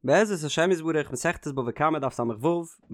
בעזרת השם יתברך מסכת בבא קמא דף ס"ו, מיר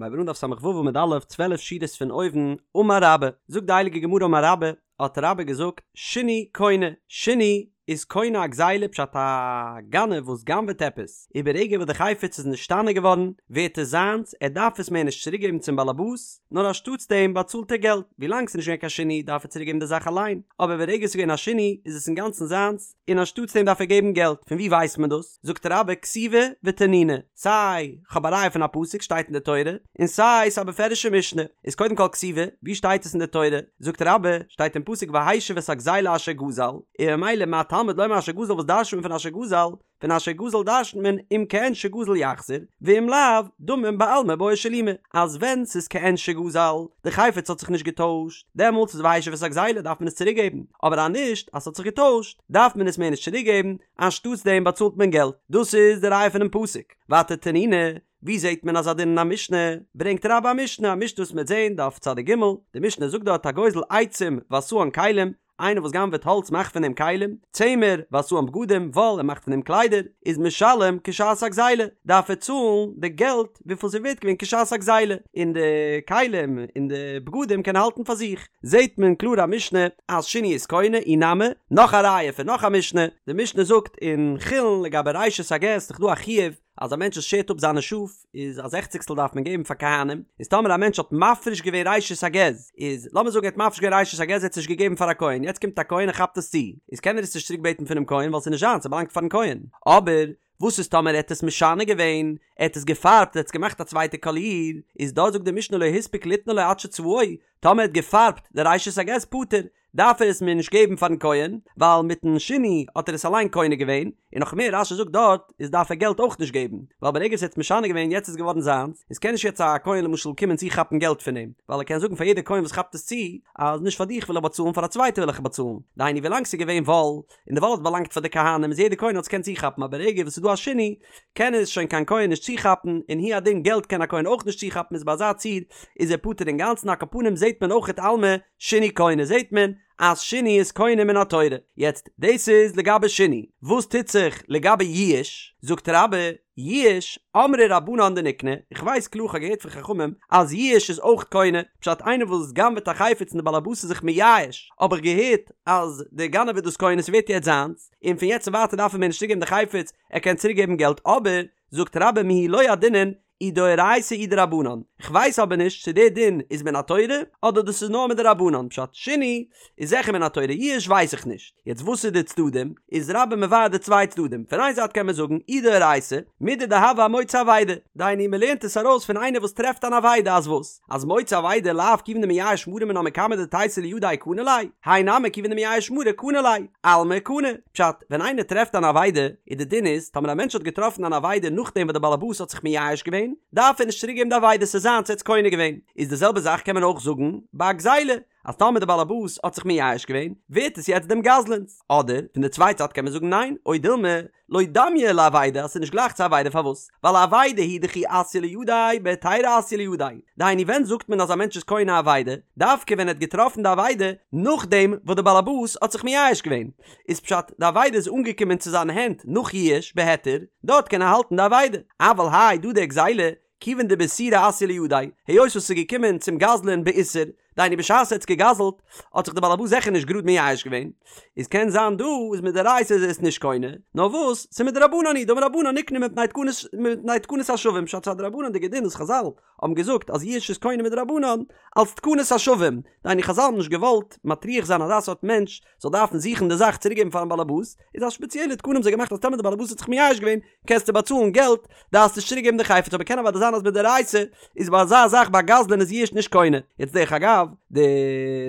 הייבן אן דף ס"ו עמוד א', 12 שורות פון אויבן, אמר רבה, זאגט די הייליגע גמרא אמר רבה, האט רבה געזאגט, שינוי קונה, שינוי איז קונה א גזילה פשט א גנב וואס גנב'עט עפעס, און ברגע וואס די חפץ איז נשתנה געווארן, ווערט עס זיינס, ער דארף עס מער נישט צוריק געבן צום באלעבאס, נאר אנשטאטס דעם באצאלט ער געלט, ווילאנג ס'איז נישט געווען קיין שינוי דארף ער צוריק געבן די זאך אליין, אבער ברגע ס'איז געווען א שינוי איז עס אינגאנצן זיינס, און אנשטאטס דעם דארף ער געבן געלט, פון וואו ווייסט מען דאס? זאגט רבה כתיבא ותנינא, סיי כ'האב א ראיה פון א פסוק שטייט אין די תורה, און סיי ס'איז א בפירוש'ע משנה, איז קודם כל כתיבא, וואו שטייט עס אין די תורה? זאגט רבה, שטייט אין פסוק והשיב את הגזילה אשר גזל, און ממילא מה תלמוד לומר אשר גזל וואס דרש'נט מען פון אשר גזל? פון אשר גזל דרש'נט מען אם כעין שגזל יחזיר, ואם לאו, דמים בעלמא בעי שלומי, אז ווען ס'איז כעין שגזל, די חפץ האט זיך נישט געטוישט, דעמאלטס איז והשיב את הגזילה דארף מען עס צוריק געבן, אבער אז נישט, אז ס'האט זיך געטוישט, דארף מען עס מער נישט צוריק געבן, אנשטאטס דעם באצאלט מען געלט. דאס איז די ראיה פונעם פסוק. ווייטער תנינא, ווי זעט מען אזא דין אין א משנה? ברענגט רבה א משנה, א משנה וואס מ'וועט זען, דף צדיק ג, די משנה זאגט דארט הגוזל עצים ועשאן כלים, איינער וואס גנב'עט האלץ מאכט פון דעם כלים, צמר, ועשאן בגדים, וואל, ער מאכט פון דעם קליידער, איז משלם כשעת הגזילה, דארף ער צאלן די געלט וויפיל ס'איז ווערט געווען כשעת הגזילה, און די כלים און די בגדים קען ער האלטן פאר זיך. זעט מען קלאר א משנה אז שינוי איז קונה, אי נמי, נאך א ראיה פון נאך א משנה, די משנה זאגט אין חולין לגבי ראשית הגז ס'איז דאך דא א חיוב אז א מענטש וואס שערט אפ זיינע שאף איז א זעכציגסטל דארף מען געבן פאר כהנים, איז טאמער א מענטש האט מפריש געווען ראשית הגז, איז לאמיר זאגן ער האט מפריש געווען ראשית הגז ער האט עס נישט געגעבן פאר א כהן, יעצט קומט א כהן און כאפט עס צו, איז קען ער עס נישט צוריק בעטן פונעם כהן ווייל ס'איז נישט זיינס ס'באלאנגט פארן כהן, אבער וואס איז טאמער ער האט עס משנה געווען, ער האט עס געפארבט ער האט עס געמאכט א צווייטע קאליר, איז דארט זאגט די משנה לא הספיק ליתנו לו עד שצבעו, טאמער ער האט געפארבט די ראשית הגז פטור, דארף ער עס מער נישט געבן פארן כהן, ווייל מיטן שינוי האט ער עס אליין קונה געווען, און נאך מער רש"י זאגט דארט איז דארף ער געלט אויך נישט געבן, ווייל ברגע עס האט משנה געווען יעצט איז געווארן זיינס, איז קען נישט יעצט א כהן למשל קומען צוכאפן געלט פון אים, ווייל ער קען זאגן פאר יעדע כהן וואס כאפט עס צו, אז נישט פאר דיך וויל איך באצאלן פאר א צווייטע וויל איך באצאלן, דהיינו ווילאנג ס'איז געווען וואל, און די וואל האט באלאנגט פאר די כהנים איז יעדע כהן האט עס געקענט צוכאפן אבער ברגע וואס ס'איז דא א שינוי קען עס שוין קיין כהן נישט צוכאפן און הוא הדין געלט קען א כהן אויך נישט צוכאפן איז ביי אזא ציור איז ער פטור אינגאנצן על כל פנים זעהט מען אויכעט אלמא שינוי קונה זעהט מען אז שינוי איז קונה מן התורה יעצט דאס איז לגבי שינוי וואס טוט זיך לגבי יאוש זאגט רבה יאוש, אמרי רבנן דניקני, איך ווייס קלאר כ'האב געהערט פון חכמים אז יאוש איז אויך קונה, פשט איינער וואס גנב'עט א חפץ און די בעל הבית איז זיך מייאש, האב איך געהערט אז דער גנב איז דאס קונה ס'ווערט יעצט זיינס, און פון יעצט און ווייטער דארף ער מער נישט צוריקגעבן די חפץ, ער קען צוריקגעבן געלט אבער, זאגט רבה מיהו לא ידעינן אי דאורייתא אי דרבנן, כ'ווייס אבער נישט צו דער דין איז מן התורה אדער דאס איז נאר מדרבנן, פשט שינוי איז זיכער מן התורה יאוש ווייס איך נישט. יעצט וואס איז די צדדים? איז רבה מבאר די צוויי צדדים, פון איין זייט קען מען זאגן אי דאורייתא, מידי דהוה אמוצא אבידה, דהיינו מען לערנט עס ארויס פון איינער וואס טרעפט אן אבידה אז וואס? אז מוצא אבידה לאו כיוון דמייאש מרה מינה מקמי דתיתי לידיה קני ליה, האי נמי כיוון דמייאש מרה קני ליה, אלמא קני. פשט, ווען איינער טרעפט אן אבידה, איז די דין איז, טאמער א מענטש האט געטראפן אן אבידה נאכדעם וואס די בעל הבית האט זיך מייאש געווען, דארף ער נישט צוריק געבן די אבידה, ס'איז זיינס, ער האט עס קונה געווען. איז די זעלבע זאך קען מען אויך זאגן ביי א גזילה, אז טאמער די באלעבאס האט זיך מייאש געווען, ווערט עס יעצט דעם גזלן'ס. אדער, פון די צווייטע צד קען מען זאגן ניין, או דילמא, לא דמיא לאבידה אז ס'איז נישט גלייך צו אבידה פארוואס? ווייל אבידה הוא דכי אתיא לידיה בהיתירא אתיא לידיה. דהיינו ווען זאגט מען אז א מענטש איז קונה אבידה? דווקא ווען ער האט געטראפן די אבידה נאכדעם וואס די באלעבאס האט זיך מייאש געווען. איז פשט די אבידה איז אנגעקומען צו זיינע הענט נאך ייאוש בהיתר, דארט קען ער האלטן די אבידה. אבל האי דא די גזילה כיוון דבאיסורא אתיא לידיה, היות וואס ס'איז געקומען צום גזלן באיסור, דהיינו בשעת ער האט עס געגזלט, האט זיך דער בעל הבית זיכער נישט גראד מייאש געווען, איז קען זיין דא איז מדאורייתא איז ער עס נישט קונה, נאר וואס, ס'איז מדרבנן הוא, דאמור רבנן נקנה מפני תקנת מפני תקנת השבים, פשט ס'איז א דרבנן'דיגע דין וואס חזל האבן געזאגט אז יאוש איז קונה מדרבנן, אלס תקנת השבים, דהיינו חזל האבן נישט געוואלט מטריח זיין אזא סארט מענטש זאל דארפן זוכן די זאך צוריקגעבן פארן בעל הבית, איז א שפעציעלע תקנה האבן זיי געמאכט אז טאמער די בעל הבית האט זיך מייאש געווען, קענסטו באצאלן געלט, דארפסט נישט צוריק געבן די חפץ, אבער קען אוודאי זיין אז מדאורייתא איז ביי אזא זאך ביי גזלן איז יאוש נישט קונה. יעצט דרך אגב, די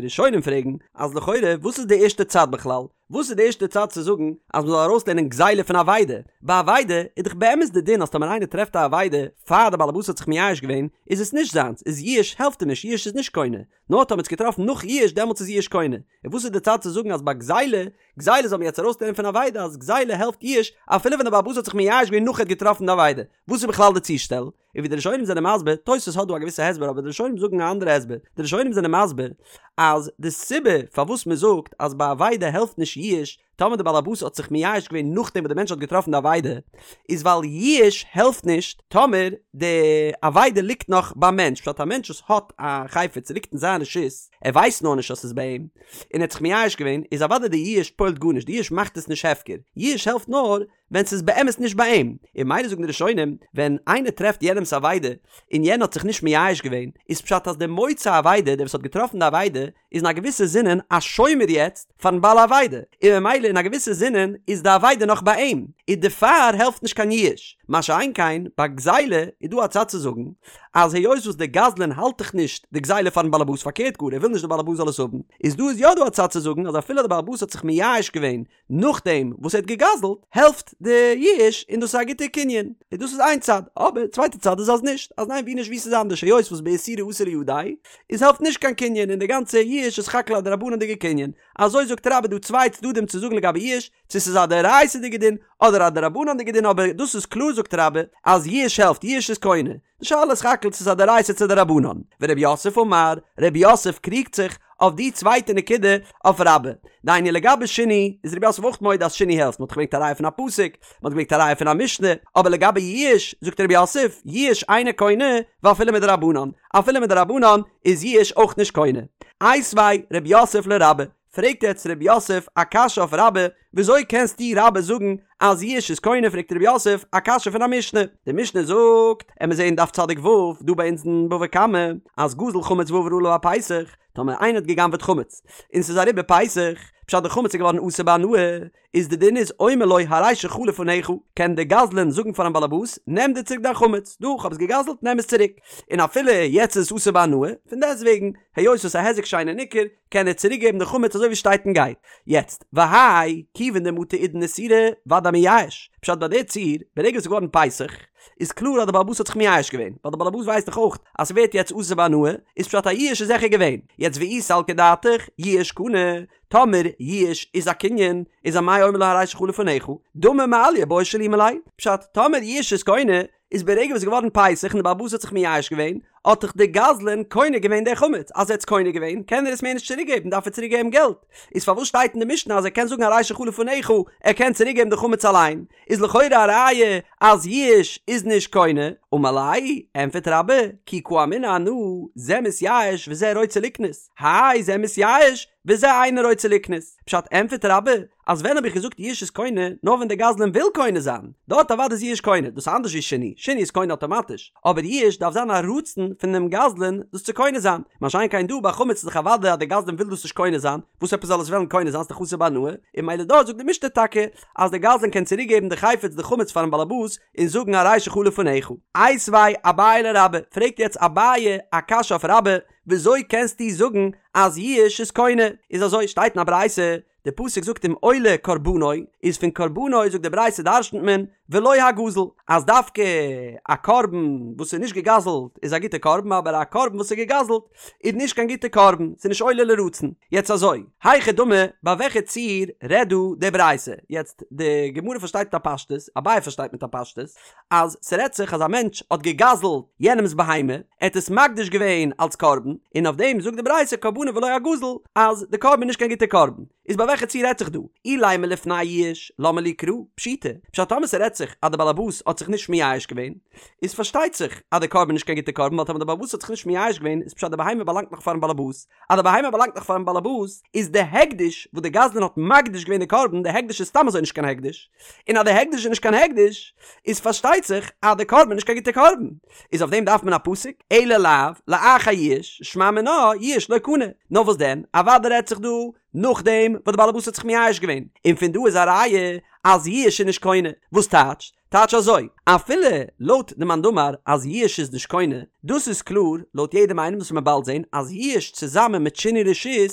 ראשונים פרעגן אז לכאורה וואס איז די ערשטע צד בכלל? וואס איז די ערשטע צד צו זאגן אז מ'זאל ארויסלערנען גזילה פון אבידה? ביי אבידה איז דאך באמת די דין אז טאמער איינער טרעפט א אבידה פאר די בעל הבית האט זיך מייאש געווען איז עס נישט זיינס, איז יאוש העלפט אים נישט, יאוש איז נישט קונה. נאר טאמער האט עס געטראפן נאך יאוש דעמאלטס איז יאוש קונה. און וואס איז די צד צו זאגן אז ביי גזילה, גזילה זאל מען יעצט ארויסלערנען פון אבידה אז גזילה העלפט יאוש אפילו ווען דער בעל הבית האט זיך מייאש געווען נאך ער האט געטראפן די אבידה. וואס איז בכלל די צושטעל? און ווי די ראשונים זענען מסביר, תוספות האט דא א געוויסע הסבר אבער די ראשונים זאגן א אנדערע הסבר, די ראשונים זענען מסביר אז די סיבה פארוואס מען זאגט אז ביי אבידה העלפט נישט יאוש, טאמער די באלעבאס האט זיך מייאש געווען נאכדעם וואס די מענטש האט געטראפן די אבידה, איז ווייל ייאוש העלפט נישט טאמער די אבידה ליגט נאך ביים מענטש, פשט א מענטש וואס האט א חפץ ס'ליגט אין זיין רשות, ער ווייסט נאר נישט אז ס'איז ביי אים, און ער האט זיך מייאש געווען, איז אוודאי די ייאוש פועל'ט גארנישט, די ייאוש מאכט עס נישט הפקר, ייאוש העלפט נאר ווען ס'איז באמת נישט ביי אים, און ממילא זאגן די ראשונים, ווען איינער טרעפט יענעמ'ס אבידה, און יענער האט זיך נישט מייאש געווען, איז פשט אז דער מוצא אבידה, דער וואס האט געטראפן די אבידה, איז אין א געוויסע זינען א שומר יעצט פארן בעל האבידה, און ממילא אין א געוויסע זינען איז די אבידה נאך ביי אים, און דערפאר העלפט נישט קיין ייאוש. מה שאין כן ביי גזילה איז דא א צד צו זאגן, אז היות וואס דער גזלן האלט דאך נישט די גזילה פארן בעלעבאס פארקערט גאר ער וויל נישט דער בעלעבאס זאל עס האבן, איז דא איז יא דא א צד צו זאגן אז אפילו דער בעלעבאס האט זיך מייאש געווען נאכדעם וואס ער האט געגזלט, העלפט די ייאוש און דאס איז א גוטע קנין, און דאס איז איין צד, אבער צווייטע צד איז אז נישט, אז ניין ווי נישט ווי ס'איז אנדערש היות וואס באיסורא אתא לידיה, איז העלפט נישט קיין קנין און די גאנצע ייאוש איז סך הכל א דרבנן'דיגע קנין, אזוי זאגט רבה דא צוויי צדדים צו זאגן לגבי ייאוש, צו ס'איז א דאורייתא'דיגע דין אדער א דרבנן'דיגע דין אבער דאס איז קלאר זאגט רבה אז ייאוש העלפט ייאוש איז קונה, די שאלה איז סך הכל צו ס'איז א דאורייתא צו דרבנן. ורב יוסף אמר, רב יוסף קריגט זיך אויף די צווייטע נקודה אויף רבה. דהיינו לגבי שינוי איז רב יוסף אויך מודה אז שינוי העלפט, מ'האט געברענגט א ראיה פון א פסוק, מ'האט געברענגט א ראיה פון א משנה, אבער לגבי ייאוש זאגט רב יוסף, ייאוש אינו קונה ואפילו מדרבנן, אפילו מדרבנן איז ייאוש אויך נישט קונה. איתיביה רב יוסף לרבה, פרעגט יעצט רב יוסף א קשיא אויף רבה, וויאזוי קענסטו רבה זאגן אז ייאוש איז קונה פרעגט רב יוסף א קשיא פון א משנה, די משנה זאגט, עמיר זעהן דף צדיק ו' דא ביי אונז אין בבא קמא, אז גזל חמץ ועבר עליו הפסח, טאמער איינער האט גע'גנב'עט חמץ, און ס'איז אריבער פסח, פשט די חמץ איז געווארן אסור בהנאה, איז די דין איז אומר לו הרי שלך לפניך, קען די גזלן זאגן פארן באלעבאס, נעם דיר צוריק דיין חמץ, דא כ'האב עס גע'גזל'ט נעם עס צוריק, און אפילו יעצט איז עס אסור בהנאה, פון דעסטוועגן, היות עס איז א היזק שאינו ניכר, קען ער צוריק געבן די חמץ אזוי ווי שטייט און גייט. יעצט, והאי, כיוון דמטא עידן איסורא, ודאי מייאש. פשט ביי די ציור, ברגע עס איז געווארן פסח, איז קלאר אז די בעל הבית האט זיך מייאש געווען, ווייל די בעל הבית ווייסט דאך אויך אז ס'ווערט יעצט אסור בהנאה, איז פשט א ייאוש איז זיכער געווען. יעצט ואי סלקא דעתך, ייאוש קני, טאמער ייאוש איז א קנין, איז אמאי אומר לו הרי שלך לפניך, דמי מעליא בעי שלומי ליה. פשט, טאמער ייאוש איז קונה, איז ברגע וואס איז געווארן פסח און די בעל הבית האט זיך מייאש געווען, האט דאך די גזלן קונה געווען די חמץ, אז ער האט עס קונה געווען קען ער עס מער נישט צוריק געבן דארף ער צוריק געבן געלט, איז פארוואס שטייט אין די משנה אז ער קען זאגן הרי שלך לפניך, ער קען צוריק געבן די חמץ אליין, איז לכאורה א ראיה אז ייאוש איז נישט קונה, אמר ליה, ענפערט רבה, כי קאמינא אנא, זה מתייאש וזה רוצה לקנות, האי זה מתייאש וזה אינו רוצה לקנות, פשט ענפערט רבה, אז ווען האב איך געזאגט ייאוש איז קונה, נאר ווען דער גזלן וויל קונה זיין, דארט אוודאי איז ייאוש קונה, דאס איז אנדערש ווי שינוי, שינוי איז קונה אטאמאטיש, אבער ייאוש דארף זיין א רצון פון דעם גזלן דאס צו קונה זיין, מה שאין כן דא ביי חמץ איז דאך אוודאי אז דער גזלן וויל דאס נישט קונה זיין, וואס עפעס זאל עס וועלן קונה זיין, ס'איז דאך אסור בהנאה, און ממילא דארט זאגט די משנה טאקע אז דער גזלן קען צוריק געבן די חפץ די חמץ פארן באלעבאס און זאגן הרי שלך לפניך. איתיביה אביי לרבה, פרעגט יעצט אביי א קשיא אויף רבה, וויאזוי קענסטו זאגן אז ייאוש איז קונה? איז אזוי, שטייט אין א ברייתא, די פסוק זאגט אם עולה קרבנו, איז פון קרבנו זאגט די ברייתא דרשנ'ט מען ולא הגזול, אז דווקא א קרבן וואס איז נישט געגזל'ט איז א גוטע קרבן אבער א קרבן וואס איז געגזל'ט איז נישט קיין גוטע קרבן, ס'איז נישט עולה לרצון. יעצט אזוי, היכי דמי, ביי וועלכע ציור רעדט דא די ברייתא? יעצט די גמרא פארשטייט מיט א פשטות, אביי פארשטייט מיט א פשטות, אז ס'רעדט זיך אז א מענטש האט געגזל'ט יענעמ'ס בהמה, ער האט עס מקדיש געווען אלס קרבן, און אויף דעם זאגט די ברייתא קרבנו ולא הגזול, אז די קרבן איז נישט קיין גוטע קרבן. איז ביי וועלכע ציור רעדט זיך דא? אילימא לפני יאוש, למה לי קרא? פשיטא. פשט טאמער ס'רעדט זיך אז די בעלעבאס האט זיך נישט מייאש געווען, איז פארשטייט זיך אז די קרבן איז נישט קיין גוטע קרבן, ווייל טאמער די בעלעבאס האט זיך נישט מייאש געווען איז פשט די בהמה באלאנגט נאך פארן בעלעבאס, אז די בהמה באלאנגט נאך פארן בעלעבאס, איז די הקדש וואס די גזלן האט מקדיש געווען די קרבן, די הקדש איז סתם אזוי נישט קיין הקדש, און אז די הקדש איז נישט קיין הקדש, איז פארשטייט זיך אז די קרבן איז נישט קיין גוטע קרבן. איז אויף דעם דארף מען א פסוק, אלא לאו, לאחר יאוש, שמע מינה, יאוש לא קני. נאר וואס דען, אוודאי רעדט זיך דא נאכדעם וואס די בעלעבאס האט זיך מייאש געווען, און פון דא איז א ראיה אז יאוש איז נישט קונה. וואס טייטש? טייטש אזוי, אפילו לויט די מאן דאמר אז יאוש איז נישט קונה, דאס איז קלאר לויט יעדעם איינעם וואס מ'וועט באלד זען אז יאוש צוזאמען מיט שינוי רשות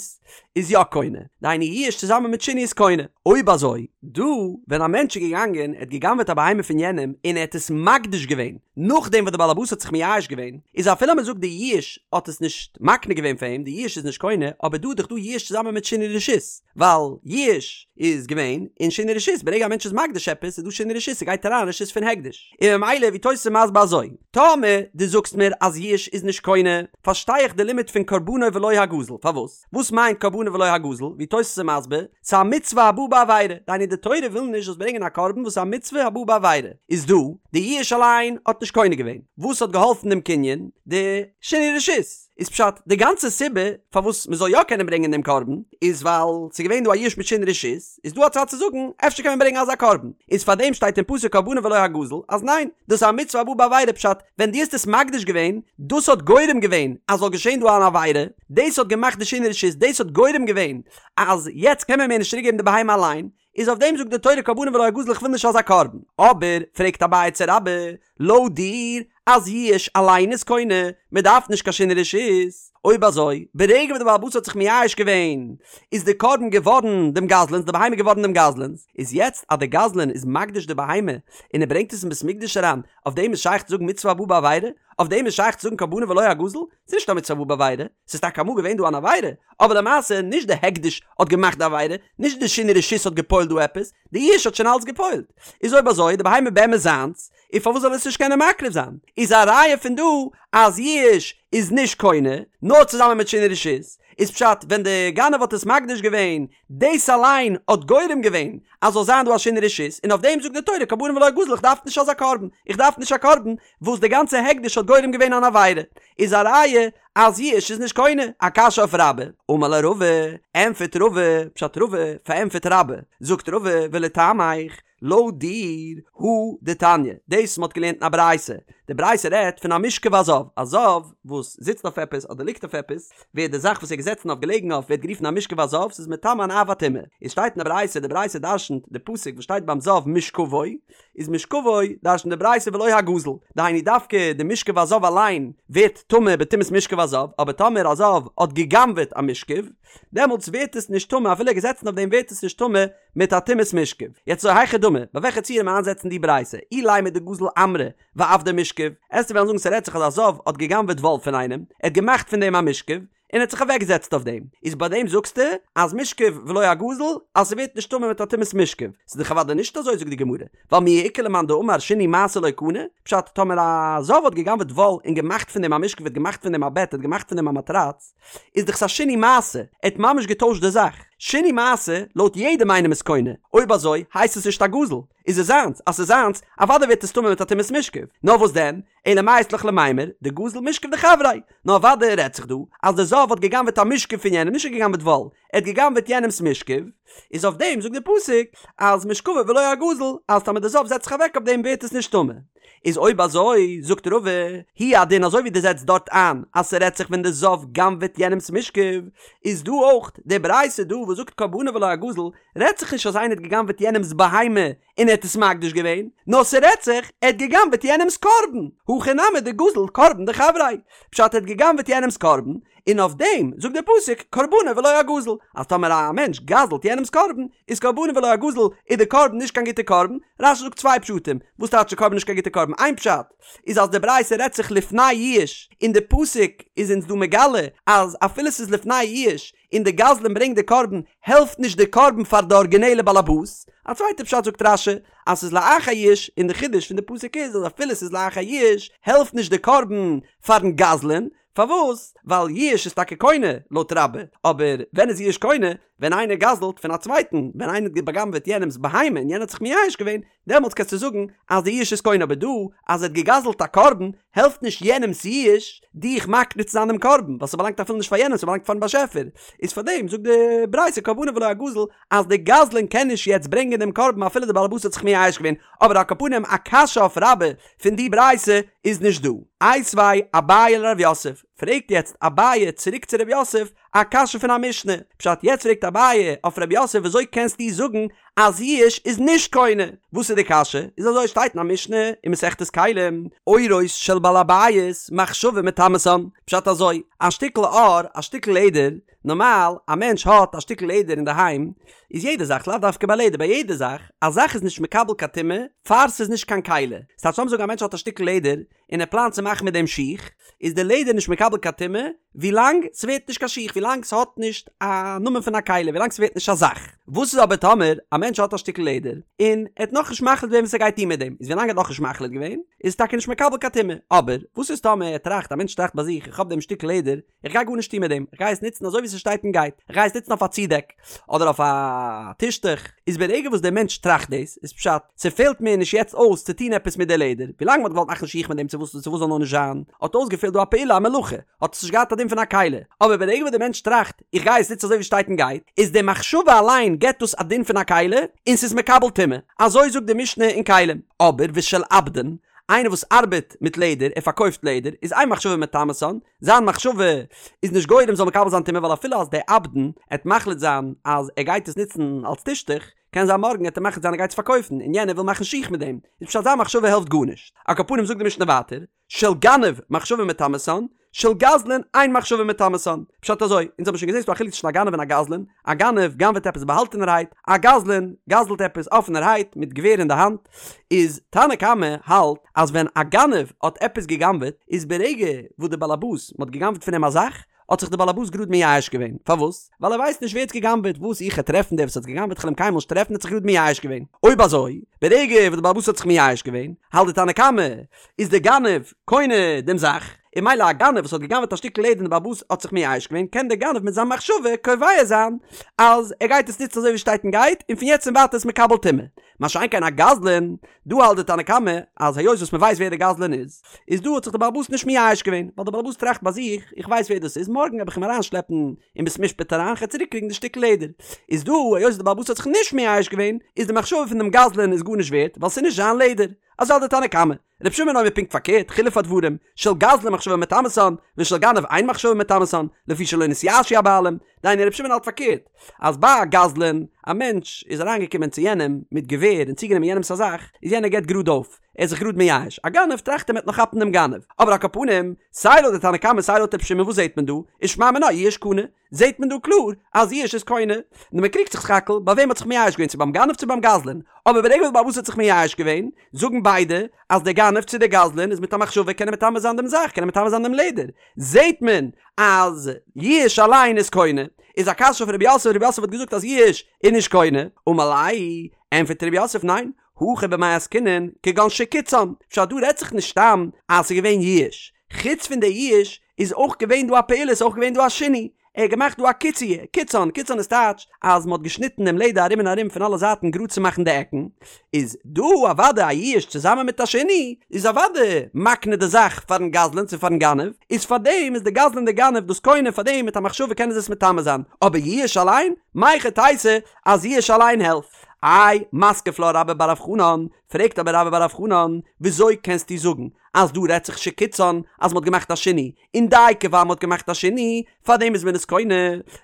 איז יא קונה, דהיינו יאוש צוזאמען מיט שינוי איז קונה. אויב אזוי, דא ווען א מענטש איז געגאנגען, ער האט גע'גנב'עט א בהמה פון יענעם און ער האט עס מקדיש געווען, נאכדעם וואס די בעלעבאס האט זיך מייאש געווען, איז אפילו אז מ'זאגט די יאוש האט עס נישט מקנה געווען פאר אים, די יאוש איז נישט קונה, אבער דא איז דאך דא יאוש צוזאמען מיט שינוי רשות, ווייל יאוש איז געווען און שינוי רשות, ברגע א מענטש איז מקדיש עפעס איז דא שינוי רשות, ס'גייט אריין רשות. רשות פון הקדש, און ממילא ווי תוס' איז מסביר אזוי, טאמער דו זאגסט מיר אז יאוש איז נישט קונה, פארשטיי איך די לימוד פון קרבנו ולא הגזול, פארוואס? וואס מיינט קרבנו ולא הגזול? ווי תוס' איז מסביר, ס'איז א מצוה הבאה בעבירה, דהיינו די תורה וויל נישט זאלסט ברענגען א קרבן וואס איז א מצוה הבאה בעבירה, איז דא, די יאוש אליין האט נישט קונה געווען, וואס האט געהאלפן דעם קנין? די שינוי רשות. איז פשט, די גאנצע סיבה פארוואס מ'זאל יא קענען ברענגען דעם קרבן, איז ווייל ס'איז געווען דא א יאוש מיט שינוי רשות, איז דא א צד צו זאגן, אפשר קען מען ברענגען אזא קרבן, איז פארדעם שטייט אין פסוק קרבנו ולא הגזול, אז ניין, דאס איז א מצוה הבאה בעבירה פשט, ווען דו האסט עס מקדיש געווען, דאס האט גורם געווען אז זאל געשען דא אן עבירה, דאס האט געמאכט די שינוי רשות, דאס האט גורם געווען אז יעצט קען מען מער נישט צוריק געבן די בהמה אליין, איז אויף דעם זאגט די תורה קרבנו ולא הגזול איך וויל נישט אזא קרבן. אבער, פרעגט אביי צו רבה, לויט דיר אז יאוש אליין איז קונה, מען דארף נישט קיין שינוי רשות, אויב אזוי, ברגע וואס די בעל הבית האט זיך מייאש געווען, איז די קרבן געווארן דעם גזלן'ס, די בהמה געווארן דעם גזלן'ס, איז יעצט אז די גזלן איז מקדיש די בהמה און ער ברענגט עס אין בית מקדש אריין, אויף דעם איז שייך צו זאגן מצוה הבאה בעבירה? אויף דעם איז שייך צו זאגן קרבנו ולא הגזול? ס'איז נישט א מצוה הבאה בעבירה, ס'איז טאקע אמאל געווען דא אן עבירה, אבער למעשה נישט די הקדש האט געמאכט די עבירה, נישט די שינוי רשות האט געפועלט דא עפעס, די יאוש האט שוין אלץ געפועלט. איז אויב אזוי די בהמה באמת זיינס, און פארוואס זאל ער עס נישט קענען מקריב זיין? איז א ראיה פון דא אז יאוש איז נישט קונה, נאר צוזאמען מיט שינוי רשות, איז פשט ווען די גנב האט עס מקדיש געווען, דאס אליין האט גורם געווען אז זאל זיין דא א שינוי רשות, און אויף דעם זאגט די תורה קרבנו ולא הגזול איך דארף נישט אזא קרבן, איך דארף נישט א קרבן וואס די גאנצע הקדש האט גורם געווען אן עבירה, איז א ראיה אז יאוש איז נישט קונה, א קשיא אויף רבה, אמר ליה רבא, ענפערט רבא, פשט רבא פארענטפערט רבה, זאגט רבא ולטעמיך, לויט דיר, הא דתניא, דאס מ'האט געלערנט אין א ברייתא, די ברייתא רעדט פון א מושכב הזב, א זב וואס זיצט אויף עפעס אדער ליגט אויף עפעס, ווערט די זאך וואס ער איז געזעצן אויף געלעגן אויף ווערט גערופן א מושכב הזב, ס'איז מטמא אן אב הטומאה. עס שטייט אין די ברייתא, די ברייתא דרשנ'ט די פסוק וואס שטייט ביים זב משכבו, איז משכבו דרשנ'ט די ברייתא ולא הגזול, דהיינו דווקא די משכב הזב אליין ווערט טמא בטומאת משכב הזב, אבער טאמער א זב האט גע'גנב'עט א משכב, דעמאלטס ווערט עס נישט טמא אפילו ער איז געזעצן אויף דעם ווערט עס נישט טמא מיט א טומאת משכב. יעצט אזוי היכי דמי, ביי וועלכע ציור מען איינזעצן די ברייתא, אילימא דגזל עמרא ועבדיה משכב, עסטו וועלן זאגן ס'רעדט זיך אז א זב האט גע'גנב'עט וואל פון איינעם, ער האט געמאכט פון דעם א משכב, און ער האט זיך אוועקגעזעצט אויף דעם, איז ביי דעם זאגסטו אז משכב ולא הגזול אז ס'ווערט נישט טמא מיט א טומאת משכב, ס'איז דאך אוודאי נישט אזוי זאגט די גמרא, ווייל מי איכא למאן דאמר שינוי מעשה לא קנה, פשט טאמער א זב האט גע'גנב'עט וואל און געמאכט פון דעם א משכב האט געמאכט פון דעם א בעט האט געמאכט פון דעם א מאטראץ, איז דאך ס'א שינוי מעשה, ער האט ממש געטוישט די זאך. שינוי מעשה, לויט יעדעם איינעם איז קונה, אויב אזוי הייסט עס נישט א גזול, איז עס זיינס, אז ס'איז זיינס, אוודאי ווערט עס טמא מיט א טומאת משכב, נאר וואס דען, אלא מאי אית לך למימר, דגזל משכב דחבריה, נאר אוודאי רעדט זיך דא, אז דער זב האט גע'גנב'עט א משכב פון יענעם, נישט ער האט גע'גנב'עט וואל, ער האט גע'גנב'עט יענעמ'ס משכב, איז אויף דעם זאגט דער פסוק, אז משכבו ולא הגזול, אז טאמער דער זב זעצט זיך אוועק אויף דעם ווערט עס נישט טמא. איז אויב אזוי, זאגט רבא, הוא הדין אזוי ווי דו זעצט דארט איין אז ס'רעדט זיך ווען די זב גנב'עט יענעמ'ס משכב, איז דא אויך די ברייתא דא וואס זאגט קרבנו ולא הגזול, רעדט זיך נישט אז איינער האט געגנב'עט יענעמ'ס בהמה און ער האט עס מקדיש געווען, נאר ס'רעדט זיך ער האט געגנב'עט יענעמ'ס קרבן, הכא נמי דגזל קרבן דחבריה, פשט ער האט געגנב'עט יענעמ'ס קרבן, און אויף דעם זאגט דער פסוק קרבנו ולא הגזול, אז טאמער א מענטש גזל'ט יענעמ'ס קרבן, איז קרבנו ולא הגזול, איז די קרבן נישט קיין גוטע קרבן, רש"י זאגט צוויי פשטים, וואס טייטש די קרבן נישט קיין גוטע קרבן, איין פשט איז אז די ברייתא רעדט זיך לפני יאוש, און די פסוק איז אונז דא מגלה אז אפילו ס'איז לפני יאוש, און די גזלן ברענגט די קרבן, העלפט נישט די קרבן פאר די ארגינעלע באלעבאס, א צווייטע פשט זאגט רש"י אז ס'איז לאחר יאוש, און די חידוש פון די פסוק איז אז אפילו ס'איז לאחר יאוש, העלפט נישט די קרבן פארן גזלן, פארוואס? ווייל יאוש איז טאקע קונה, לויט רבה, אבער ווען איז יאוש קונה? ווען איינער גזל'ט פון א צווייטן, ווען איינער האט בא'גנב'עט יענעמ'ס בהמה און יענער האט זיך מייאש געווען, דעמאלטס קענסטו זאגן אז די יאוש איז קונה, אבער דא אז ער האט געגזל'ט א קרבן, העלפט נישט יענעמ'ס יאוש דיך מקנה צו זיין דעם קרבן, ווייל ס'באלאנגט אפילו נישט פאר יענעם, ס'באלאנגט פארן באשעפער, איז פארדעם זאגט די ברייתא קרבנו ולא הגזול אז די גזלן קען נישט יעצט ברענגען דעם קרבן אפילו די בעל הבית האט זיך מייאש געווען, אבער על כל פנים א קשיא אויף רבה פון די ברייתא איז נישט דא. איתיביה אביי לרב יוסף, פרעגט יעצט אביי צוריק צו רב יוסף א קשיא פון א משנה, פשט יעצט פרעגט אביי אויף רב יוסף וויאזוי קענסטו זאגן אז יאוש איז נישט קונה, וואס איז די קשיא? איז אזוי שטייט אין א משנה אין מסכת כלים, עורות של בעל הבית מחשבה מטמאתן, פשט אזוי, א שטיקל עור, א שטיקל לעדער, נארמאל א מענטש האט א שטיקל לעדער אינדערהיים, איז יעדע זאך, לאו דווקא ביי לעדער, ביי יעדע זאך, א זאך איז נישט מקבל קיין טומאה פאר ס'איז נישט קיין כלי. ס'טייטש לאמיר זאגן א מענטש האט א שטיקל לעדער און ער פלאנט צו מאכן מיט דעם שיך, איז די לעדער נישט מקבל קיין טומאה ווילאנג ס'ווערט נישט קיין שיך, ווילאנג ס'האט נישט א נאמען פון א כלי, ווילאנג ס'ווערט נישט א זאך. וואס איז אבער טאמער א מענטש האט א שטיקל לעדער און ער האט נאכנישט מחליט געווען וואס ער גייט טון מיט דעם, איז ווילאנג ער האט נאכנישט מחליט געווען איז עס טאקע נישט מקבל קיין טומאה, אבער וואס איז טאמער ער טראכט, א מענטש טראכט ביי זיך איך האב דעם שטיקל לעדער, איך גיי גארנישט טון מיט דעם, איך גיי עס נוצן אזוי ווי ס'שטייט און גייט, איך גיי עס נוצן אויף א צודעק, אדער אויף א טישטוך, איז ברגע וואס דער מענטש טראכט דאס, איז פשט, ס'פעלט מיר נישט יעצט אויס צו טון עפעס מיט די לעדער, ווילאנג מ'האט געוואלט מאכן שיך מיט דעם צו וואס צו וואס זאל נאר נישט זיין, האט אויסגעפעלט דא א פעולה א מלאכה, האט עס נישט געהאט א דין פון א כלי, אבער ברגע וואס דער מענטש טראכט, איך גיי עס נוצן אזוי ווי ס'שטייט און גייט, איז די מחשבה אליין געבט דאס א דין פון א כלי, און ס'איז מקבל טומאה, אזוי זאגט די משנה אין כלים. אבער ושל עבדן, איינער וואס ארבעט מיט לעדער, ער פארקויפט לעדער, איז אין מחשבה מטמאתן, זיין מחשבה איז נישט גורם זאל מקבל זיין טומאה ווייל אפילו אז דער עבדן עט מחליט זיין אז ער גייט עס נוצן אלס טישטוך, קען זיין מארגן עט ער מחליט זיין ער גייט עס פארקויפן און יענער וויל מאכן שיך מיט דעם, איז פשט זיין מחשבה העלפט גארנישט. על כל פנים זאגט די משנה ווייטער, של גנב מחשבה מטמאתן, של גזלן אין מחשבה מטמאתן. פשט אזוי, אונז האבן שוין געזען ס'דא א חילוק צווישן א גנב און א גזלן, א גנב גנב'עט עפעס באהאלטענערהייט, א גזלן גזל'ט עפעס אפענערהייט מיט געווער אין די האנט, איז תנא קמא האלט אז ווען א גנב האט עפעס געגנב'עט איז ברגע וואס די באלעבאס מ'האט געגנב'ט פון אים א זאך האט זיך די באלעבאס גראד מייאש געווען, פארוואס? ווייל ער ווייסט נישט ווער האט געגנב'עט, וואס איך העט טרעפן דער וואס האט געגנב'עט כ'על אים קיינמאל נישט טרעפן האט זיך גראד מייאש געווען, אויב אזוי ברגע וואס די באלעבאס האט זיך מייאש געווען האלט די תנא קמא איז די גנב קונה דעם זאך, און ממילא א גנב וואס האט געגנב'עט א שטיקל לעדער און די באלעבאס האט זיך מייאש געווען קען דער גנב מיט זיין מחשבה קובע זיין אז ער גייט עס נוצן אזוי ווי שטייט און גייט און פון יעצט און ווייטער איז מקבל טומאה. מה שאין כן א גזלן, דא האלט די תנא קמא אז היות וואס מ'ווייסט ווער די גזלן איז, איז דא האט זיך די בעל הבית נישט מייאש געווען, ווייל די בעל הבית טראכט ביי זיך, איך ווייס ווער דאס איז, מארגן וועל איך אים אריינשלעפן אין בית משפט אריין, כ'וועל צוריק קריגן די שטיקל לעדער. איז דא, היות די בעל הבית האט זיך נישט מייאש געווען, איז די מחשבה פון דעם גזלן איז גארנישט ווערט, ווייל ס'איז נישט זיין לעדער. אזוי האלט די תנא קמא. רבי שמעון אומר פונקט פארקערט, חילוף הדברים, של גזלן מחשבה מטמאתן, ושל גנב אין מחשבה מטמאתן, לפי שלא נתייאשו הבעלים, דהיינו רבי שמעון האלט פארקערט, אז ביי א גזלן, א מענטש איז אריינגעקומען צו יענעם מיט געווער און צוגענומען יענעמס א זאך, איז יענער געבט גראד אויף, ער איז זיך גראד מייאש, א גנב טראכט ער מ'עט נאך כאפן דעם גנב, אבער על כל פנים, סיי לויט די תנא קמא סיי לויט רבי שמעון וואס זעט מען דא, איז שמע מינה יאוש קנה, זעט מען דא קלאר אז יאוש איז קונה, נאר מען קריגט זיך סך הכל ביי וועם האט זיך מייאש געווען צו ביים גנב צו ביים גזלן, אבער ברגע וואס די בעל הבית האט זיך מייאש געווען, זאגן ביידע אז דער גנב צו דער גזלן איז מיט א מחשבה קען ער מטמא זיין דעם זאך, קען ער מטמא זיין דעם לעדער, זעט מען אז יאוש אליין איז קונה, איז א קשיא אויף רב יוסף, רב יוסף האט געזאגט אז יאוש איז נישט קונה, אמר ליה, ענפערט רב יוסף ניין, הכא במאי עסקינן, כגון שקיצען, פשט דא רעדט זיך נישט סתם אז ס'איז געווען יאוש, חוץ פון די יאוש איז אויך געווען דא א פעולה, ס'איז אויך געווען דא א שינוי, ער האט געמאכט דא א קיצוע, קיצען, קיצען איז טייטש אז מ'האט געשניטן דעם לעדער ארום און ארום פון אלע זייטן גראד צו מאכן די עקן, איז דא אוודאי א יאוש צוזאמען מיט א שינוי, איז אוודאי מקנה די זאך פארן גזלן צו פארן גנב, איז פארדעם איז די גזלן די גנב דאס קונה פארדעם מיט א מחשבה קענען זיי עס מטמא זיין, אבער יאוש אליין? מהיכי תיתי אז יאוש אליין העלפט? איי, מתקיף לה רבה בר רב חנן, פרעגט אבער רבה בר רב חנן, וויאזוי קענסטו זאגן אז דא רעדט זיך שקיצען אז מ'האט געמאכט א שינוי, און דייקא ווייל מ'האט געמאכט א שינוי, פארדעם איז מען עס קונה,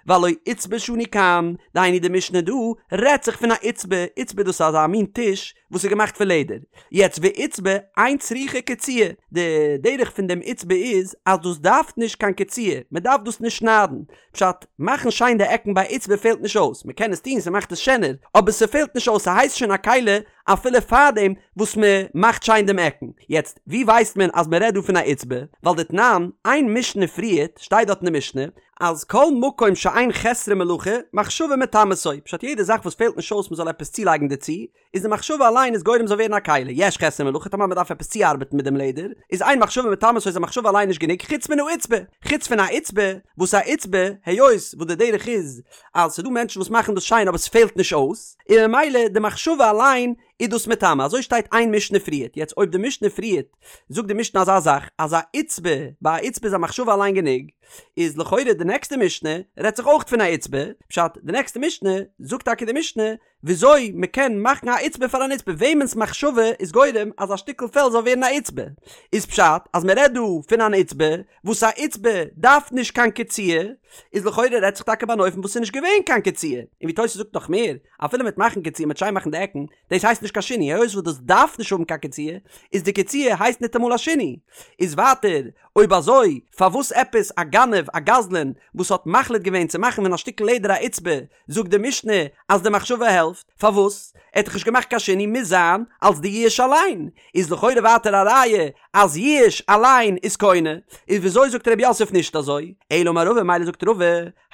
והלא עיצבא שנו כאן, דהיינו די משנה דא רעדט זיך פון א עיצבא, עיצבא דאס איז אזא מין טיש וואס איז געמאכט פון לעדער, יעצט ועיצבא אין צריכה קציעה, די דרך פון דעם עיצבא איז אז דאס דארף נישט קיין קציעה, מ'דארף דאס נישט שניידן, פשט, מאכן שיין די עקן ביי עיצבא פעלט נישט אויס, מ'קען עס טון ס'מאכט עס שענער, אבער ס'פעלט נישט אויס ס'הייסט שוין א כלי אפילו פארדעם וואס מ'מאכט שיין דעם עקן. יעצט, ווי ווייסט מען אז מ'רעדט דא פון א עיצבא? ווייל דתנן, איין משנה פריערט, שטייט דארט אין די משנה, אז כל מקום שאין חסרון מלאכה, מחשבה מטמאתו, פשט יעדע זאך וואס פעלט נישט אויס מ'זאל עפעס צולייגן דערצו, איז די מחשבה אליין איז גורם זאל ווערן א כלי, יש חסרון מלאכה טאמער מ'דארף עפעס צוארבעטן מיט דעם לעדער, איז אין מחשבה מטמאתו איז א מחשבה אליין נישט גענוג חוץ מן העיצבא, חוץ פון א עיצבא, וואס א עיצבא, היות וואס די דרך איז אז ס'דא מענטשן וואס מאכן דאס שיין אבער ס'פעלט נישט אויס, און ממילא די מחשבה אליין איז דאס מטמא, אזוי שטייט איין משנה פריערט, יעצט אויב די משנה פריערט זאגט די משנה אזא זאך אז א עיצבא, ביי א עיצבא איז א מחשבה אליין גענוג, איז לכאורה די נעקסטע משנה רעדט זיך אויך פון א עיצבא, פשט די נעקסטע משנה זאגט טאקע די משנה. וויאזוי מ'קען מאכן א עיצבא פאר אן עיצבא, וועמענס מחשבה איז גורם אז א שטיקל פעל זאל ווערן א עיצבא, איז פשט אז מ'רעדט דא פון אן עיצבא וואס א עיצבא דארף נישט קיין קציעה, איז לכאורה רעדט זיך טאקע ביי אן אופן וואס ס'איז נישט געווען קיין קציעה, און ווי תוס' זאגט נאך מער, אפילו מ'וועט מאכן קציעה מ'וועט שיין מאכן די עקן, דאס הייסט נישט קיין שינוי, היות וואס דאס דארף נישט האבן קיין קציעה, איז די קציעה הייסט ניטאמאל א שינוי. איז ווייטער, אויב אזוי, פארוואס עפעס א גנב, א גזלן, וואס האט מחליט געווען צו מאכן פון א שטיקל לעדער א עיצבא, זאגט די משנה אז די מחשבה העלפט, פארוואס? ער האט דאך נישט געמאכט קיין שינוי, מוז זיין אלס די יאוש אליין, איז לכאורה ווייטער א ראיה אז יאוש אליין איז קונה, איז וויאזוי זאגט ר' יוסף נישט אזוי? אלא אמר רבא מילא זאגט רבא,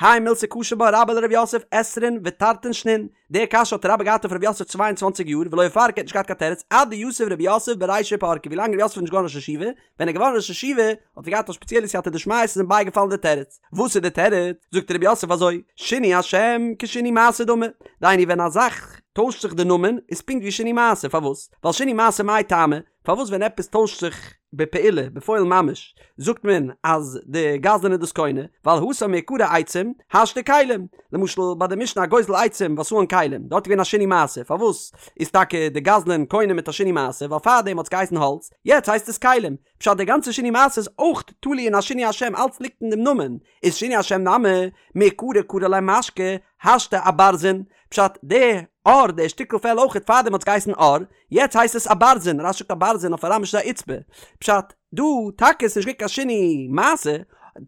האי מילתא קשי בה רבה לר' יוסף עשרין ותרתין שנין, די קשיא האט רבה געהאט אויף ר' יוסף צוויי און צוואנציג יאר ולא איפרכא האט נישט געהאט קיין תירוץ עד דיתיב ר' יוסף ברישא ופרקה ווילאנג ר' יוסף איז נישט געווארן ראש ישיבה, ווען ער איז געווארן ראש ישיבה האט ער געהאט א שפעציעלע סייעתא דשמיא ס'איז אים בייגעפאלן די תירוץ. וואס איז די תירוץ? זאגט ר' יוסף אזוי, שינוי השם כשינוי מעשה דמי, דהיינו ווען א זאך טוישט זיך די נאמען איז פונקט ווי שינוי מעשה, פארוואס? ווייל שינוי מעשה מאי טעמא, פארוואס ווען עפעס טוישט זיך בפעולה, בפועל ממש, זאגט מען אז די גזלן איז דאס קונה, ווייל התם מעיקרא עצים, השתא כלים, למשל ביי די משנה הגוזל עצים ועשאן כלים, דארט איז געווען א שינוי מעשה, פארוואס איז טאקע די גזלן קונה מיט א שינוי מעשה, ווייל פארדעם האט עס געהייסן האלץ, יעצט הייסט עס כלים, פשט די גאנצע שינוי מעשה איז אויך תלוי אין א שינוי השם אלץ ליגט אין דעם נאמען, איז שינוי השם נמי, מעיקרא קרי ליה משכא, השתא אברזין, פשט די עור די שטיקל פעל אויכעט פארדעם האט עס געהייסן עור, יעצט הייסט עס אברזין, רש"י זאגט אברזין אויף אראמיש איז א עיצבא, פשט דא טאקע איז נישט געווען קיין שינוי מעשה,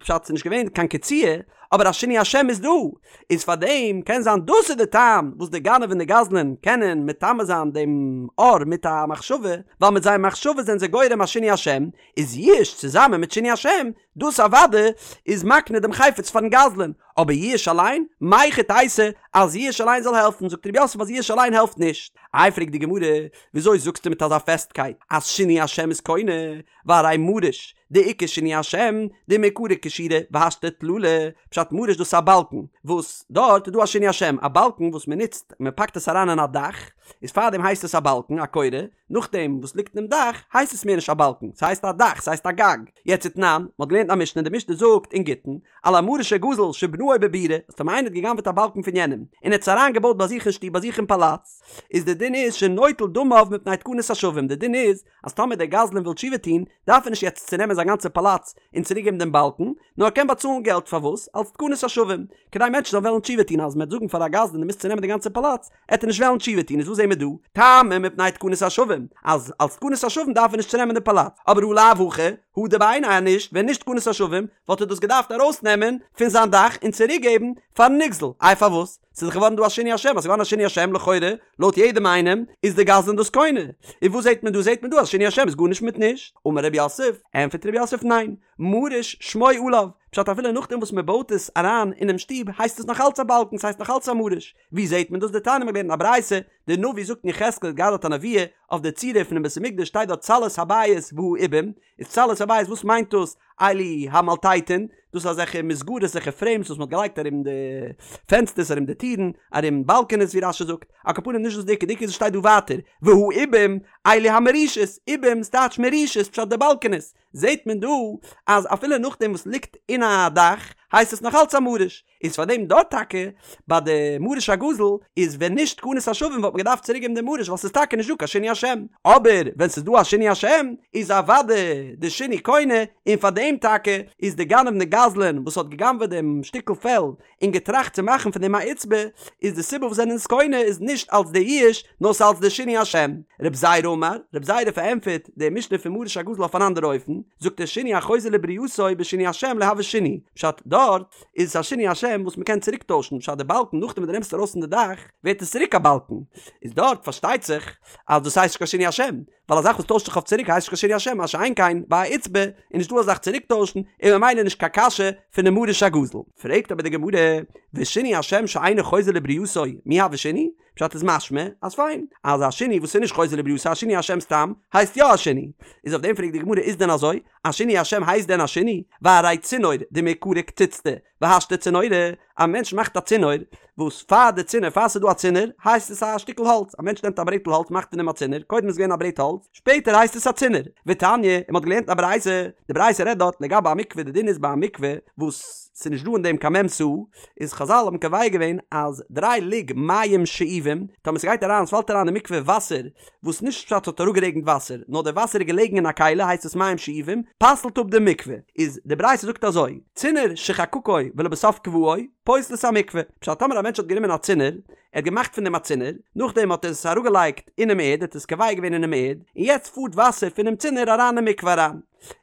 פשט ס'איז נישט געווען קיין קציעה, אבער א שינוי השם איז דא, איז פאר דעם קען זיין דאס איז די טעם וואס די גנב און די גזלן קענען מטמא זיין דעם עור מיט א מחשבה, ווייל מיט זייער מחשבה זענען זיי גורם א שינוי השם, איז יאוש צוזאמען מיט שינוי השם, דאס אוודאי איז מקנה דעם חפץ פארן גזלן, אבער יאוש אליין, מהיכי תיתי אז יאוש אליין זאל העלפן, זאגט ר' יוסף אז יאוש אליין העלפט נישט. איי פרעגט די גמרא, וויאזוי זאגסטו מיט אזא פעסטקייט אז שינוי השם איז קונה, והרי מריש דאיכא שינוי השם דמעיקרא כשורא והשתא טללא, פשט מריש דאס איז א באלקן וואס דארט איז דא א שינוי השם, א באלקן וואס מען נוצט מען פאקט עס אריין אין א דאך, איז פארדעם הייסט עס א באלקן א קורה, נאכדעם וואס ליגט אינעם דאך הייסט עס מער נישט א באלקן ס'הייסט א דאך ס'הייסט א גג, יעצט ותנן, מ'האט געלערנט א משנה די משנה זאגט אין גיטין, על המריש הגזול שבנאו בבירה, אז טאמער איינער האט גע'גנב'עט א באלקן פון יענעם און ער האט עס אריין געבויט ביי זיך אין שטוב ביי זיך אין פאלאץ, איז די דין איז שנוטל דמיו מפני תקנת השבים די דין איז אז טאמער דער גזלן וויל תשובה טון, דארף ער נישט יעצט צונעמען זיין גאנצע פאלאץ און צוריקגעבן דעם באלקן, נאר ער קען באצאלן געלט פארוואס? אלס תקנת השבים, כדי מענטשן זאלן וועלן תשובה טון, אז מען וועט זאגן פאר א גזלן דו מוזט צונעמען די גאנצע פאלאץ, עט ער נישט וועלן תשובה טון, איז וואס זעהן מיר דא? טעמא מפני תקנת השבים, אז אלס תקנת השבים דארף ער נישט צונעמען די פאלאץ, אבער הא לאו הכי, הדר בעיניה אז נישט, ווען נישט תקנת השבים, וואלט ער דאס געדארפט ארויסנעמען פון זיין דאך און צוריקגעבן פארן נגזל, איי פארוואס? ס'איז דאך געווארן דא א שינוי השם, אז ס'איז געווארן א שינוי השם לכאורה, לויט יעדעם איינעם, איז די גזלן דאס קונה. און וואס זעט מען דא? זעט מען דא אז שינוי השם איז גארנישט מיט נישט. אמר רב יוסף, ענטפערט רב יוסף ניין, מריש שמו עליו, פשט אפילו נאכדעם וואס מ'בויט עס אריין אינעם שטוב הייסט עס נאך אלץ א באלקן, ס'הייסט נאך אלץ א מריש. ווי זעט מען דאס? דתניא מ'האט געלערנט אין א ברייתא, די נביא זאגט אין יחזקאל האט געהאט דארט א נבואה, אויף די צורה פונעם בית המקדש שטייט דארט צלעות הבית והעובים, איז צלעות הבית וואס מיינט דאס? אלו המלטטין, דאס איז אזעלכע מסגרות אזעלכע פרעימס וואס מען האט געלייגט ארום די פענסטערס ארום די טירן ארום באלקענעס ווי רש"י זאגט, על כל פנים נישט דאס די עיקר, די עיקר איז עס שטייט דא ווייטער והעובים אלו המרישות, עובים ס'טייטש מרישות פשט די באלקענעס, זעט מען דא אז אפילו נאכדעם וואס ליגט אין א דאך הייסט עס נאך אלץ א מריש. איז פאר דעם דארט טאקע ביי די מריש הגזול איז ווען נישט תקנת השבים וואלט מען געדארפט צוריק געבן די מריש ווייל ס'איז טאקע נישט דא קיין שינוי השם, אבער ווען ס'איז דא א שינוי השם איז אוודאי די שינוי קונה, און פאר דעם טאקע איז די גנב און די גזלן וואס האט גע'גנב'עט דעם שטיקל פעל און געטראכט צו מאכן פון דעם א עיצבא איז די סיבה וואס זענען עס קונה איז נישט אלס די יאוש נאר ס'אלס די שינוי השם. רב זירא אמר, רב זירא פארענטפערט די משנה פון מריש הגזול אויף אן אנדערע אופן, זאגט ער שינוי החוזר לברייתו בשינוי השם לא הוי שינוי, פשט דארט איז עס א שינוי השם וואס מ'קען צוריק טוישן, פשט די באלקן נאכדעם ווען דו נעמסט ארויס פון די דאך ווערט עס צוריק א באלקן, איז דארט פארשטייט זיך אז דאס הייסט נישט קיין שינוי השם, ווייל א זאך וואס טוישט זיך אויף צוריק הייסט נישט קיין שינוי השם, מה שאין כן ביי א עיצבא איז נישט דא א זאך צוריק טוישן און ממילא נישט קיין קשיא פונעם מריש הגזול. פרעגט אבער די גמרא, ושינוי השם שאינו חוזר לברייתו מי הוי שינוי? פשט איז משמע אז פיין, אז א שינוי וואס איז נישט חוזר לברייתו א שינוי השם סתם הייסט יא א שינוי, איז אויף דעם פרעגט די גמרא איז דען אזוי? א שינוי השם הייסט דען א שינוי? והרי צינור דמעיקרא קציצתא והשתא צינורא, א מענטש מאכט א צינור, וואס פאר די צינור פאר ס'איז דא א צינור הייסט עס א שטיקל האלץ, א מענטש נעמט א ברעטל האלץ מאכט פון דעם א צינור, קודם איז געווען א ברעט האלץ, שפעטער הייסט עס א צינור. ותניא, און מ'האט געלערנט אין א ברייתא, די ברייתא רעדט דארט לגבי א מקווה, די דין איז ביי א מקווה וואס. ס'איז נישט דא אין דעם קיין מ' סאה, איז חזל האבן קובע געווען אז דריי לוג מים שאובים, טאמער ס'גייט אריין, ס'פאלט אריין אין מקווה וואסער, וואס נישט פשט ס'האט אראפגערעגנט וואסער, נאר די וואסער איז געלעגן אין א כלי הייסט עס מים שאובים, פסל'ט אפ די מקווה. איז די ברייתא זאגט אזוי, צינור שחקקו ולבסוף קבעו, פוסל את המקווה. פשט טאמער א מענטש האט גענומען א צינור, ער האט געמאכט פון דעם א צינור, נאכדעם האט ער עס אראפגעלייגט אינעם ערד, ער האט עס קובע געווען אינעם ערד, און יעצט פארט וואסער פונעם צינור אריין אין מקווה אריין.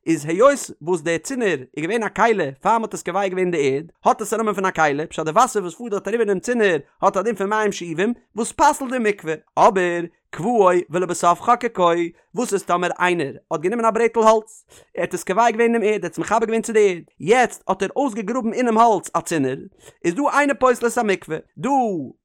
איז היות וואס דער צינור איז געווען א כלי פאר מ'האט עס קובע געווען אין די ערד, האט עס א נאמען פון א כלי, פשט די וואסער וואס פארט דארט אריבער אינעם צינור האט א דין פון מים שאובים וואס פסל'ט די מקווה. אבער קבעו ולבסוף חקקו, וואס איז טאמער איינער האט גענומען א ברעטל האלץ, ער האט עס קובע געווען אינעם ערד, ער האט עס מחבר געווען צו די ערד, יעצט האט ער אויסגעגראבן אינעם האלץ א צינור, איז דא אינו פוסל את המקווה, דא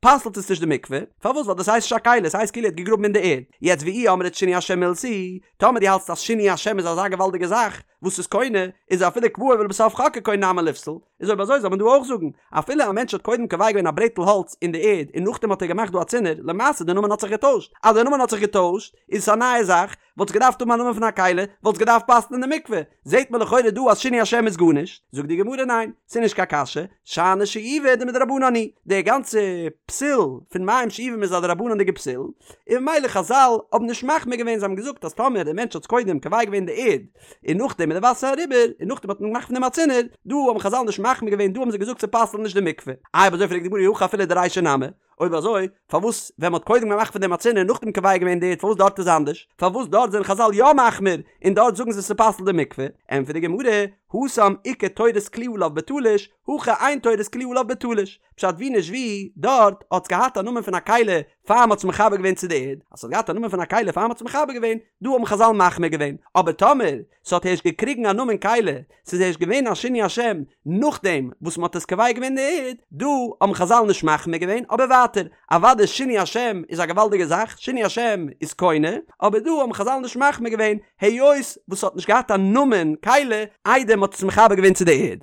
פסל'ט עס נישט די מקווה, פארוואס ווייל דאס הייסט נישט א כלי, עס הייסט כאילו ער האט געגראבן אין די ערד, יעצט ואי אמרת שינוי השם מילתא היא, טאמער דו האלטסט אז שינוי השם איז אזא געוואלדיגע זאך וואס איז קונה, איז אפילו קבעו ולבסוף חקקו נמי ליפסל, איז אויב אזוי זאל מען דא אויך זאגן, אפילו א מענטש האט קודם קובע געווען א ברעטל האלץ אין די ערד און נאכדעם האט ער געמאכט דא א צינור, למעשה די נאמען האט זיך געטוישט, אז די נאמען האט זיך געטוישט איז עס א נייע זאך, וואלט עס געדארפט האבן א נאמען פון א כלי, וואלט עס געדארפט פסל'ן אין די מקווה, זעט מען לכאורה דא אז שינוי השם איז גארנישט, זאגט די גמרא ניין, ס'איז נישט קיין קשיא, שאני שאובה דמדרבנן היא, די גאנצע פסול פון מים שאובים איז א דרבנן'דיגע פסול, און ממילא חזל האבן נישט מחמיר געווען, זיי האבן געזאגט אז טאמער דער מענטש האט קודם קובע געווען די ערד, און נאכדעם איז די וואסער אריבער, און נאכדעם האט מען געמאכט פון דעם א צינור, דא האבן חזל נישט מחמיר געווען, דא האבן זיי געזאגט ס'פסל'ט נישט די מקווה. איי אויב אזוי פרעגט די גמרא אי הכי אפילו דרישא נמי, אויב אזוי פארוואס ווען מ'האט קודם געמאכט פון דעם א צינור און נאכדעם קובע געווען די ערד פארוואס דארט איז אנדערש? פארוואס דארט זענען חזל יא מחמיר און דארט זאגן זיי ס'פסל'ט די מקווה? ענטפערט די גמרא, התם איכא תורת כלי עליו בתלוש, הכא אין תורת כלי עליו בתלוש. פשט ווי נישט ווי, דארט האט עס געהאט א נאמען פון א כלי פאר מ'האט עס מחבר געווען צו די ערד, אז ס'האט געהאט א נאמען פון א כלי פאר מ'האט עס מחבר געווען, דא האבן חזל מחמיר געווען, אבער טאמער ס'האט הערשט געקריגן א נאמען כלי, ס'איז הערשט געווען א שינוי השם נאכדעם וואס מ'האט עס קובע געווען אין די ערד, דא האבן חזל נישט מחמיר געווען, אבער ווייטער, אוודאי שינוי השם איז א געוואלדיגע זאך, שינוי השם איז קונה, אבער דא האבן חזל נישט מחמיר געווען, היות וואס ס'האט נישט געהאט א נאמען כלי איידער מ'האט עס מחבר געווען צו די ערד.